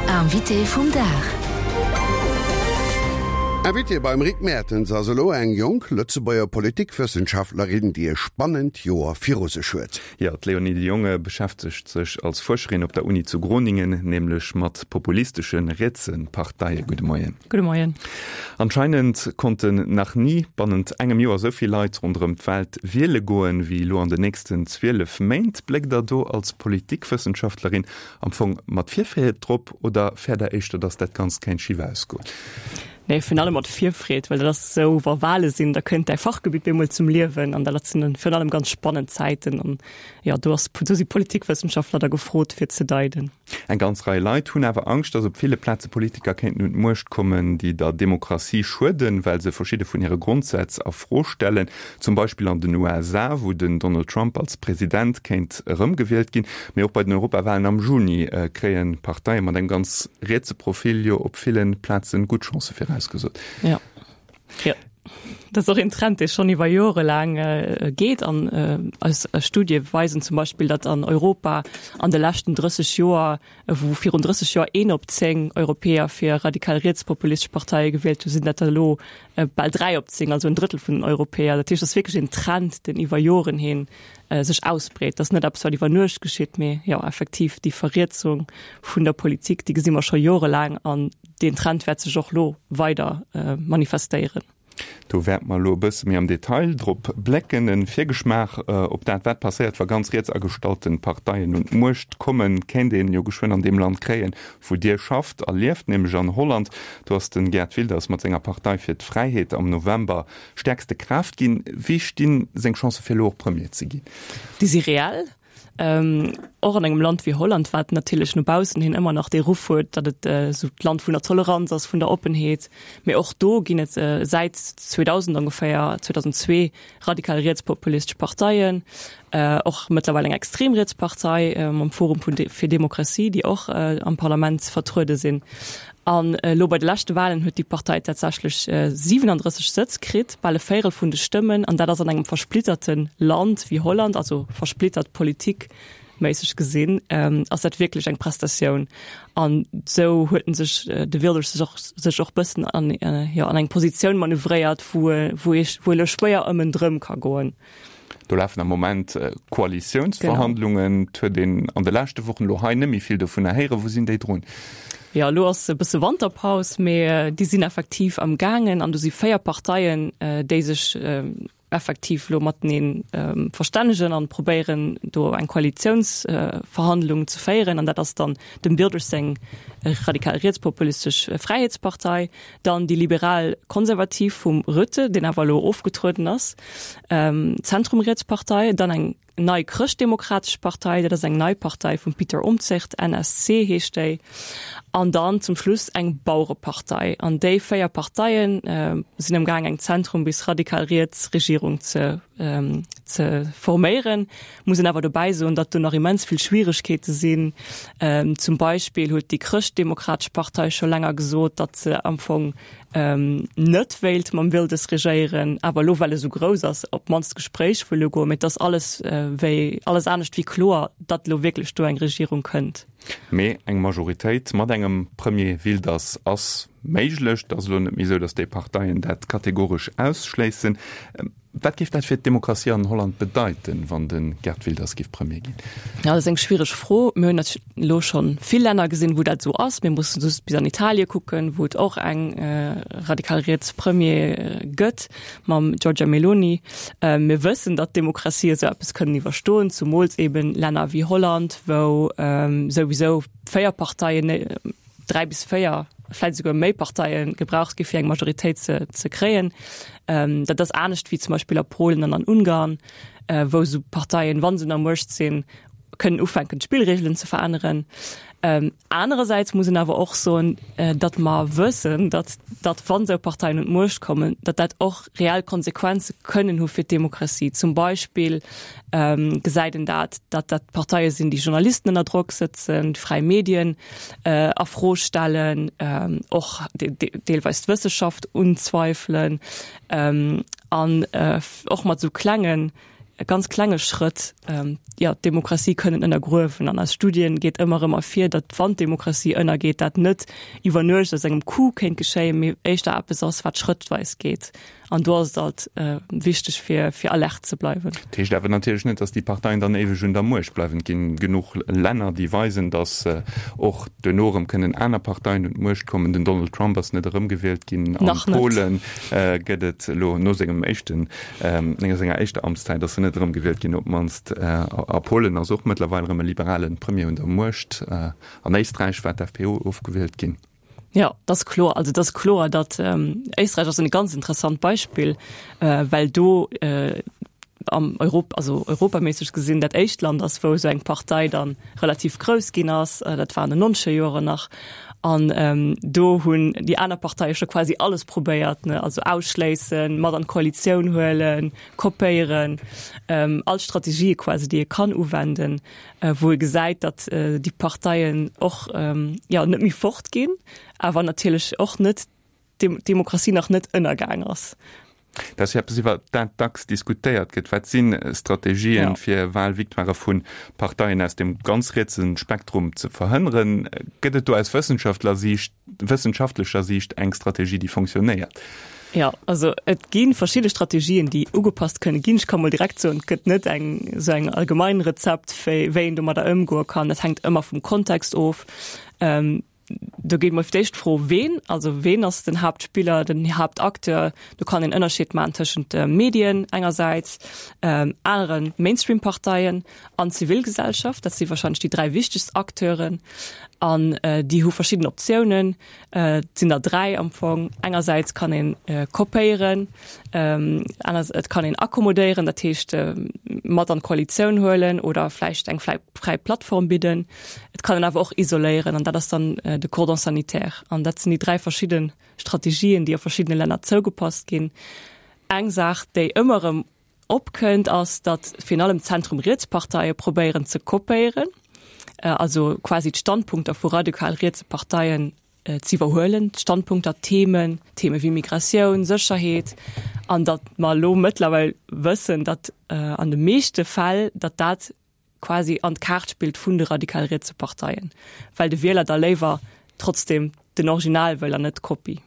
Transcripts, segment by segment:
Invité vum Dag. Invitée beim Rick Mertens ass elo eng jonk Lëtzebuerger Politikwëssenschaftlerin, déi e spannend Joer viru sech huet. Jo, d'Léonie de Jonge beschäftegt sech als Fuerscherin op der Uni zu Groningen nämlech mat populistesche rietse Parteien. Gudde Moien. Gudde Moien. Anscheinend konnten nach ni bannent engem Joer esou vill Leit ronderëm d'Welt wiele goen, wéi elo an den nächsten 12 Méint. Bléckt Der do als Politikwëssenschaftlerin am Fong mat Virfreed drop oder fäert Der éischter, datt dat Ganzt kéint schif ausgoen? Nee, virun allem mat Virfreed, well dat ass esou, wa Wale sinn, da kënnt däi Fachgebitt bemol zum Liewen an dat sinn dann virun allem ganz spannend Zäiten an jo, do ass, do si Politikwëssenschaftler da gefrot fir ze deiden. Eng ganz Rei Leit hunn awer Angscht, datt op ville Plaze Politiker kéinten un d'Muecht kommen, déi der Demokratie schueden, well se verschidde vun hire Grondsätz a Fro stellen. Zum Beispill an den USA, wou den Donald Trump als President kéint erëmgewielt ginn. Mee och bei den Europawalen am Juni kréie Parteie mat engem ganz rietse Profil jo op ville Plaze gutt Chancë virausgesot. Jo, jo. Dat ass och een Trend, dee schonn iwwer Jore laang geet. An eis Studie weisen zum Beispill, datt an Europa an de leschten 30 Joer, wou virun 30 Joer een op 10 Europäer fir radikal rietspopulistesch Parteie gewielt hunn, sinn dat der elo bal 3 op 10, also en Drëttel vun den Europäer. Dat heescht, et ass wierklech een Trend, deen iwwer Joren hin sech ausbreet. Dat ass net eppes, wat iwwer Nuecht geschitt, mee jo, effektiv déi Verrietsung vun der Politik, déi gesi mer scho jorelaang an deen Trend wäert sech och elo weider manifestéieren. Do wäerte mer elo e bësse méi am Detail drop blécken. E Virgeschmaach op dat, wat passéiert, wa ganz riets agestallte Parteien un d'Muecht kommen, kéint een jo geschwënn an deem Land kréien, wou Dir schafft a lieft, nämlech an Holland. Do ass de Geert Wilders mat senger Partei fir d'Fräiheet am November stäerkste Kraaft ginn. Wéi stinn seng Chancë fir elo och Premier ze ginn? Déi si reell. Och an engem Land wéi Holland, wat natierlech no baussen hin ëmmer nach dee Ruff huet, datt et esou d'Land vun der Toleranz ass, vun der Oppenheet. Mee och do ginn et säit 2000 ongeféier, 2002, radikal rietspopulistesch Parteien, och mëttlerweil eng extrem riets Partei mam Forum fir Demokratie, déi och am Parlament vertruede sinn. An elo bei de leschte Walen huet déi Partei tatsächlech 37 Sëtz kritt, bal e Véierel vun de Stëmmen. An dat ass an engem versplitterte Land wéi Holland, also versplittert politikméisseg gesinn, ass dat wierklech eng Prestatioun. An esou huet en sech, de Wilders sech och, sech och bëssen an, jo, an eng Positioun manövréiert, wou e, wou ee, wou e elo schwéier ëm en drëm ka goen. Do lafen am Moment Koalitiounsverhandlungen. Et huet een an de leschte Wochen elo hei net méi vill dovunner héieren. Wou sinn déi drun? Jo, elo ass e bësse Wanterpaus, mee déi sinn effektiv am gaangen an do si 4 Parteien, déi sech effektiv elo matenee verstännegen an probéieren, do eng Koalitiounsverhandlung ze féieren. An dat ass dann dem Wilders seng radikal rietspopulistesch Fräiheetspartei, dann déi liberal-konservativ vum Rutte, deen awer elo ofgetrueden ass, Zentrum-Rietspartei, dann eng nei chrëschtdemokratesch Partei, dat ass eng nei Partei vum Pieter Omtzigt, NSC heescht déi, an dann zum Schluss eng Bauerepartei. An déi 4 Parteie sinn am gaang eng Zentrum bis radikal riets Regierung ze ze forméieren. Muss een awer dobäi soen, datt do nach immens vill Schwieregkeete sinn. Zum Beispill huet déi Chrëschtdemokratesch Partei scho länger gesot, datt se am Fong net wéilt mam Wilders regéieren, awer elo, well e sou grouss ass, op d'mannst d'Gespréich wëll ugoen. Mee et ass alles wéi alles anescht wéi kloer, datt elo wierklech do eng Regierung kënnt. Mee eng Majoritéit mat engem Premier Wilders ass méiglech. Et ass elo net méi esou, datt déi Parteien dat kategoresch ausschléissen. Wat géif dat fir d'Demokratie an Holland bedeiten, wann de Geert Wilders géif Premier ginn? Ja, dat ass eng schwiereg Fro. Mir hunn elo scho vill Länner gesinn, wou dat esou ass. Mir mussen just bis an Italie kucken, wou et och eng radikal riets Premier gëtt mam Giorgia Meloni. Mir wëssen, datt d'Demokratie esou eppes kënnen iwwerstoen, zumools eben Länner wéi Holland, wou souwisou 4 Parteien, 3 bis 4, vläit esouguer méi Parteie gebraucht gi fir eng Majoritéit ze, ze kréien. Ähm, dat ass anescht wéi zum Beispill a Polen an an Ungarn, äh, wou esou Parteien, wann se un der Muecht sinn, kënnen ufänken d'Spillregelen ze veränneren. Ähm, anerersäits muss een awer och soen, äh, datt mer wëssen, datt, datt wann esou Parteien un d'Muecht kommen, datt dat och reell Konsequenze kënnen hu fir d'Demokratie. Zum Beispill ähm, gesäit een dat, datt dat Parteie sinn, déi Journalisten ënner Drock sëtzen, fräi Medien, a Fro stellen, och deelweis d'Wësseschaft unzweifelen an och mat esou klengen. ganz klenge Schrëtt jo d'Demokratie kënnen ënnergruewen. An aus Studien geet ëmmer erëm ervir, datt wann d'Demokratie ënnergeet, dat net iwwer Nuecht aus engem Coup kéint geschéien, mee éischter eppes ass, wat schrëttweis geet. An do ass et alt wichteg, fir fir alert ze bleiwen. Dat heescht awer natierlech net, datt déi Parteien dann éiweg un der Muecht bleiwen. Et ginn genuch Länner, déi weisen, datt och duerno erëm kënnen aner Parteien un d'Muecht kommen. Den Donald Trump ass net erëmgewielt ginn. Nach A net. Polen gëtt et elo no sengem éischten, no senger éischter Amtszäit ass en net erëmgewielt ginn, op d'mannst. A Polen ass och mëttlerweil erëm e liberale Premier un der Muecht. An Éisträich war d'FPO ofgewielt ginn. Jo, dat ass kloer. Also et ass kloer, datt Éisträich ass en ganz interessant Beispill, well do am Europ also europaméisseg gesinn dat éischt Land ass, wou esou eng Partei dann relativ grouss ginn ass. Dat war an den nonzeger Joren nach. An do hunn déi aner Parteie scho quasi alles probéiert, ne, also ausschléissen, mat an d'Koalitioun huelen, kopéieren, all Strategië quasi, déi ee kann uwenden. wou ee gesäit, datt déi Parteien och jo net méi fort ginn, awer natierlech och net d'Demokratie nach net ënnergaang ass. Dat ass jo eppes, iwwer dat dacks diskutéiert gëtt. Wat si Strategien, fir Wahlvictoirë vu Parteien aus dem ganz rietse Spektrum ze verhënneren? Gëtt et do aus Wëssenschaftlersiicht wëssenschaftlecher Siicht eng Strategie, déi fonctionnéiert? Jo, also et gi verschidde Strategien, déi ugepasst kënne ginn. Ech ka mol direkt soen, et gëtt net eng esou eng allgemein Rezept, wéi wéi een domadder ëmgoe kann. Dat hänkt ëmmer vum Kontext of. Do geet mol fir d'éischt d'Fro, ween, also ween ass den Haaptspiller, den Haaptacteur? Do kann een Ënnerscheed maachen tëschent de Medien engersäits, anere Mainstream-Parteien an d'Zivilgesellschaft. Dat si wahrscheinlech déi 3 wichtegst Acteuren. An déi hu verschidden Optiounen. Et sinn der 3 am Fong. Engersäits kann een kopéieren, aner et kann een akkommodéieren, dat heescht mat an d'Koalitioun huelen oder vläicht eng fräi Plattform bidden. Et kann een awer och isoléieren an dat ass dann de Cordon sanitaire. An dat sinn déi 3 verschidde Strategien, déi a verschiddene Länner zougepasst ginn. Eng Saach, déi ëmmer erëm Opkënnt, ass, datt virun allem d'Zentrum-Riets-Parteie probéieren ze kopéieren, also quasi d'Standpunkter vu radikal-rietse Parteien z'iwwerhuelen, d'Standpunkter, d'Themen, Theme wéi Migratioun, Sécherheet, an datt mer elo mëttlerweil wëssen, datt an de meeschte Fäll, datt dat quasi an d'Kaart spillt vun de radikal-rietse Parteien, well de Wieler da léiwer trotzdem den Original wëll an net d'Kopie.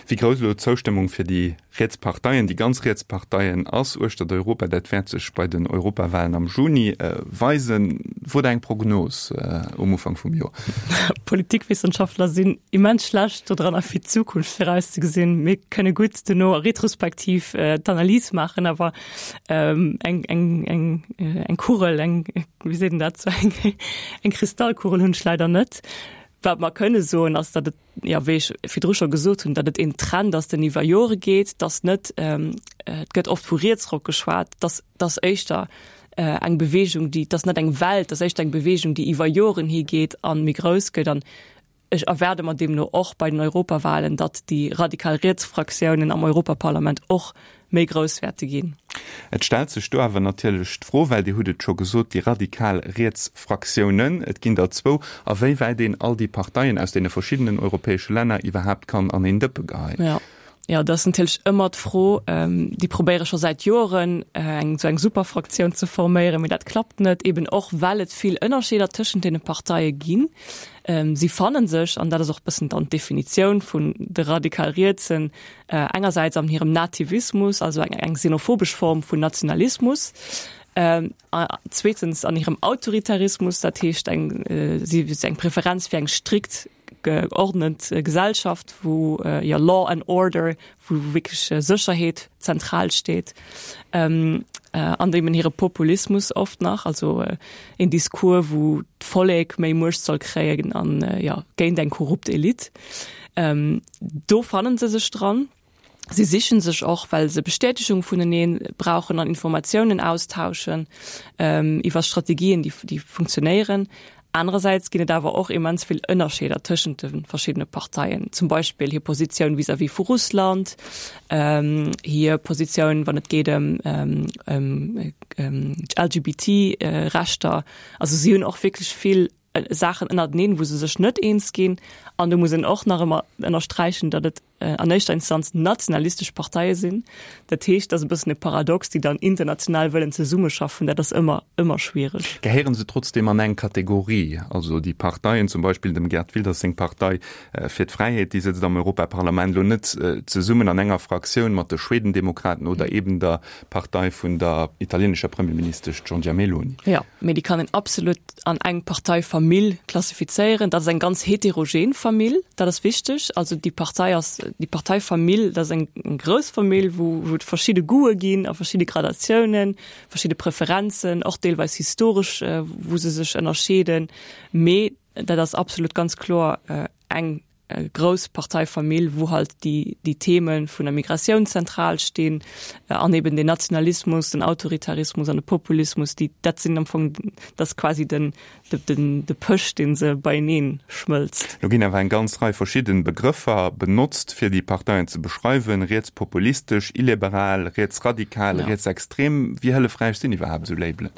Wéi grouss elo d'Zoustëmmung fir déi riets Parteien, déi ganz riets Parteien ass uechtert Europa, dat wäert sech bei den Europawahlen am Juni weisen. Wot Der eng Prognos um Ufank vum Joer? Politikwissenschaftler sinn immens schlecht dodranner fir d'Zukunft virauszegesinn. Mir kënne gutt duerno retrospektiv d'Analys maachen, awer eng, eng, eng, eng Kugel, eng, wéi seet een dat, sou eng, eng Kristallkugel hunn ech leider net. Wat mer kënne soen, ass, datt et, jo, wéi ech virdru scho gesot hunn, datt et een Trend ass, deen iwwer Jore geet, datt net, et gëtt oft vu Rietsrock geschwat, datt datt éischter eng Beweegung, déi, datt net eng Welt, datt éischter eng Beweegung, déi iwwer Joren higeet a méi grouss gëtt. An Ech erwaarde mer deemno och bei den Europawahlen, datt déi radikal riets Fraktiounen am Europaparlament och méi grouss wäerte ginn. Et stellt sech do awer natierlech d'Fro, well Dir hutt et scho gesot, déi radikal riets Fraktiounen, et ginn der zwou, a wéi wäit een all déi Parteien aus deene verschiddenen europäesche Länner iwwerhaapt kann an een Dëppe geheien. Jo, jo, dat ass natierlech ëmmer d'Fro. Déi probéiere scho säit Joren, eng esou eng Superfraktioun ze forméieren, mee dat klappt net, eben och well et vill Ënnerscheeder tëschent deene Parteie ginn. Si fanne sech, an dat ass och e bëssen dann d'Definitioun vun de radikal Rietsen, engersäits an hirem Nativismus, also eng eng xenophobesch Form vun Nationalismus, zweetens an hirem Autoritarismus, dat heescht eng si eng Preferenz fir eng strikt geordnet Gesellschaft, wou jo Law and Order, wou wierklech Sécherheet zentral steet, an eben hire Populismus oft nach, also een Discours, wou d'Vollek méi Muecht soll kréien an jo géint eng korrupt Elite. Do fannen se sech dran. Si sichen sech och, well se Bestätegung vunenee brauchen an Informatiounen austauschen iwwer Strategien, déi déi funktionéieren. Anerersäits ginn et awer och immens vill Ënnerscheeder tëschent de verschiddene Parteien, zum Beispill hir Positioun vis-à-vis vu Russland, hir Positioun, wann et geet ëm d'LGBT-Rechter. Also si hunn och wierklech vill Saachen ënnerteneen, wou se sech net eens ginn. An do muss een och nach ëmmer ënnersträichen, datt et. an éischter Instanz nationalistesch Parteie sinn. Dat heescht, dat ass e bëssen e Paradox, déi dann international wëllen zesummeschaffen, dat ass ëmmer, ëmmer schwiereg. Gehéiere se trotzdeem an eng Kategorie? Also déi Parteien, zum Beispill dem Geert Wilders seng Partei fir d'Fräiheet, déi sëtzt am Europaparlament elo net zesummen an enger Fraktioun mat de Schwedendemokraten oder eben der Partei vun der italienescher Premierministesch Giorgia Meloni. Jo, mee déi kann een absolut an eng Parteifamill klassifizéieren. Dat ass eng ganz heterogen Famill, dat ass wichteg. Also déi Partei ass, déi Parteifamill, dat ass eng grouss Famill, wou wou et verschidde Goûte ginn a verschidde Gradatiounen, verschidde Preferenzen, och deelweis historesch, wou se sech ënnerscheeden. Mee dat ass absolut ganz kloer eng grouss Parteifamill, wou halt déi déi Theme vun der Migratioun zentral stinn an eben den Nationalismus, den Autoritarismus an de Populismus, déi dat sinn am Fong dat ass quasi den den de Pësch, dee se beienee schmëlzt. Lo ginn awer eng ganz Rei verschidden Begrëffer benotzt, fir déi Parteien ze beschreiwen, rietspopulistesch, illiberal, rietsradikal, rietsextrem. Wéi hëllefräich sinn iwwerhaapt esou Labelen?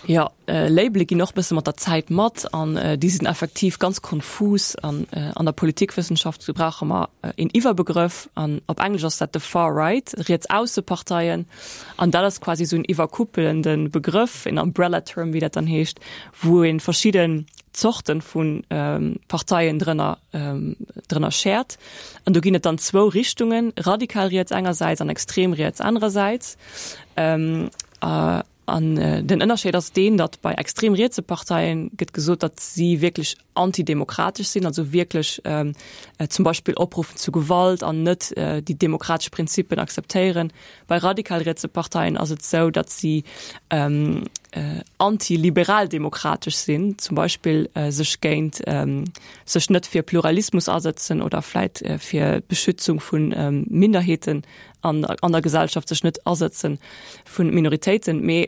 Jo, Labele ginn och e bësse mat der Zäit mat an déi sinn effektiv ganz konfus. An an der Politikwëssenschaft brauche mer een Iwwerbegrëff an op Englesch ass dat de Far Right, Riets-Ausse-Parteien. An dat ass quasi esou en iwwerkuppelende Begrëff, een Umbrella Term, wéi dat dann heescht, wou ee verschidden Zorte vu Parteien drënner drënner schäert. An do ginn et dann zwou Richtungen, radikal riets engersäits an extrem riets anerersäits. An den Ënnerscheed ass deen, datt bei extrem rietse Parteien gëtt gesot, datt si wierklech antidemokratesch sinn, also wierklech zum Beispill opruffen zu Gewalt an net déi demokratesch Prinzippen akzeptéieren. Bei radikal rietse Parteien ass et esou, datt si antiliberaldemokratesch sinn, zum Beispill sech géint sech net fir Pluralismus asëtzen oder vläit fir d'Beschützung vu Minderheeten an an der Gesellschaft sech net asëtzen vun Minoritéiten, mee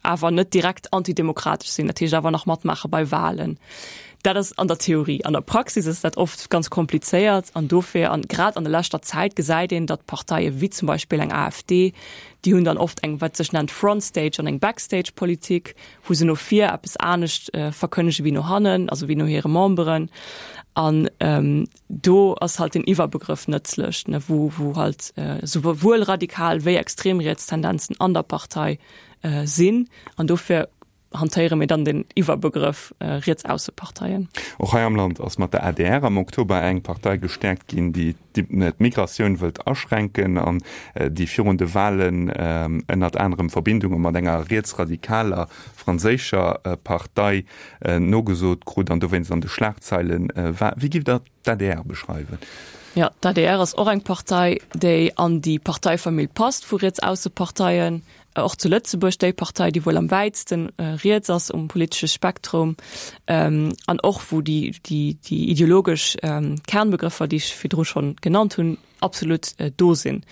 awer net direkt antidemokratesch sinn, dat heescht awer nach matmaache bei Wahlen. Dat ass an der Theorie. An der Praxis ass dat oft ganz komplizéiert an dofir an grad an der leschter Zäit gesäit een, datt Parteie wéi zum Beispill eng AfD, déi hunn dann oft eng wat sech nennt Frontstage an eng Backstage-Politik, wou se no vir eppes anescht verkënnege wéi no hannen, also wéi no hire Memberen. An Do ass halt den Iwwerbegrëff nëtzlech, ne, wou, wou halt souwuel radikal wéi extrem riets Tendenzen an der Partei sinn. An dofir hantéiere mir dann den Iwwerbegrëff Rietsausseparteien. Och hei am Land ass mat der adr am Oktober eng Partei gestäerkt ginn, déi d'Migratioun wëllt aschränken an déi virun de Walen ënnert anerem Verbindunge mat enger rietsradikaler franséischer Partei nogesot krut an dowéinst an de Schlagzeile war. Wéi giff Der d'ADR beschreiwen? Jo, d'ADR ass och eng Partei, déi an déi Parteifamill passt vu Rietsausseparteien. Och zu Lëtzebuerg déi Partei, déi wuel am wäitste riets ass um politesche Spektrum an och wou déi ideologesch Kernbegrëffer, déi ech virdru schonn genannt hunn, absolut do sinn.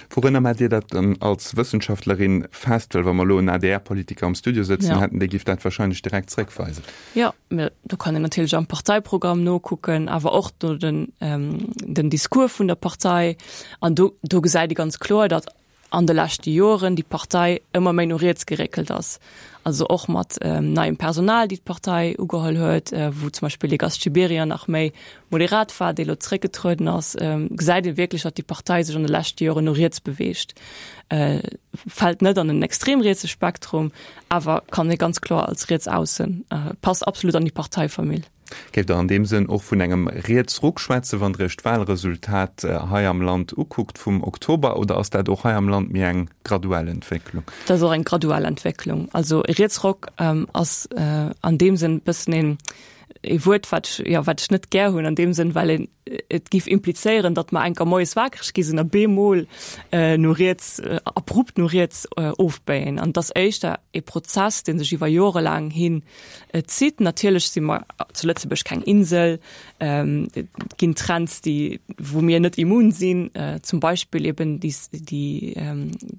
Wourunner maacht Dir dat dann als Wëssenschaftlerin fest? Well wa mer elo en ADR-Politiker am Studio sëtzen hätten, dee giff dat wahrscheinlech direkt zréckweisen. Jo, mä do kann een natierlech am Parteiprogramm nokucken, awer och no den, den Discours vun der Partei. An do, do gesäit ee ganz kloer, datt an de leschte Joren déi Partei ëmmer méi no riets geréckelt ass. Also och mat neiem Personal, déi d'Partei ugeholl huet, wou zum Beispill de Gast Gibéryen nach méi moderat war, dee lo zeréckgetrueden ass, gesäit ee wierklech, datt déi Partei sech an de leschte Joren no riets beweegt. Fält net an en extrem rietse Spektrum, awer kann ee ganz kloer als riets aussen, passt absolut an déi Parteifamill. Géift Der an deem Sënn och vun engem Rietsruck schwätzen, wann Der Iech d'Wahlresultat hei am Land ukuckt vum Oktober, oder ass dat och hei am Land méi eng graduell Entwécklung? Dat ass och eng graduell Entwécklung. Also e Rietsruck ass an deem Sënn e bëssen een ee Wuert, wat ech, jo, wat ech net gär hunn an deem Sënn, well een et géif implizéieren, datt mer enker moies wakereg gi sinn a bemol no riets, abrupt no riets ofbéien. An et ass éischter ee Prozess, dee sech iwwer jorelaang hin zitt. Natierlech si mer zu Lëtzebuerg keng Insel. Et ginn Trends, déi, wou mir net immun sinn, zum Beispill eben déi, déi,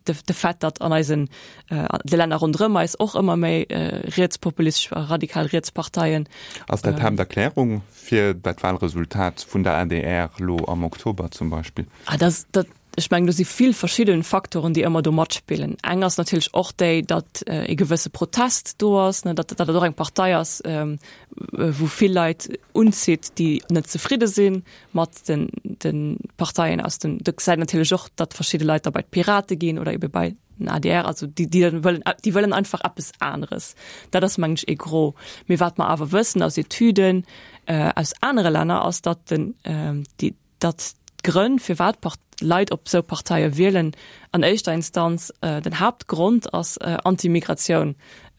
de Fait, datt an eisen, de Länner ronderëm eis och ëmmer méi rietspopulistesch a radikal riets Parteien. Ass dat d'Haapterklärung fir dat Wahlresultat vun der adr elo am Oktober zum Beispill? Ah, dat, dat. Ech mengen, do si vill verschidde Faktoren, déi ëmmer do matspillen. Eng ass natierlech och déi, datt e gewësse Protest do ass, ne, datt datt et och eng Partei ass, wou vill Leit unzitt, déi net zefridde si mat den de Parteien aus dem. Do gesäit natierlech och, datt verschidde Leit da bei d'Pirate ginn oder ebe bei den adr, also déi déi dann wëllen, déi wëllen einfach eppes aneres. Dat ass mengen ech e Gros. Mee wat mer awer wëssen aus Etüden aus anere Länner ass, datt den déi datt d'Grënn, firwat Leit op esou Parteie wielen, an éischter Instanz den Haaptgrond ass Anti-Migratioun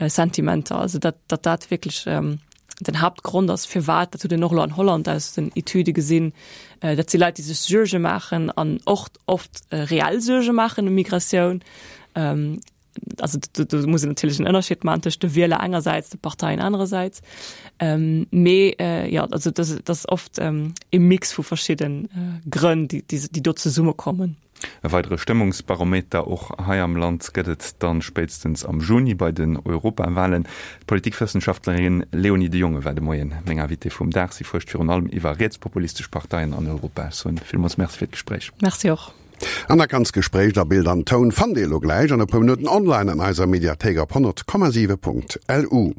Sentimenter. Also datt datt dat wierklech den Haaptgrond ass, firwat, dat huet een och elo an Holland aus den Etüde gesinn, dat si Leit, déi sech Suerge maachen an och oft reell Suerge maachen ëm Migratioun. Also do, do muss een natierlech en Ënnerscheed maachen tëscht de Wieler engersäits, de Parteien anerersäits. Ähm, mee äh, ja, also das, das ass oft ähm, e Mix vu verschidden äh, Grënn, déi, déi, déi do zesummekommen. E weidere Stëmmungsbarometer och hei am Land gëtt et dann spéitstens am Juni bei den Europawahlen. D'Politikwëssenschaftlerin Léonie de Jonge war de Moien meng Invitée vum Dag. Si fuerscht virun allem iwwer rietspopulistesch Parteien an Europa. Ech soen villmools Merci fir d'Gespréich. Merci och. An dat ganzt Gespréich a Bild an Toun fannt Dir elo gläich an e puer Minutten online an eiser Mediathéik op 100,7.lu.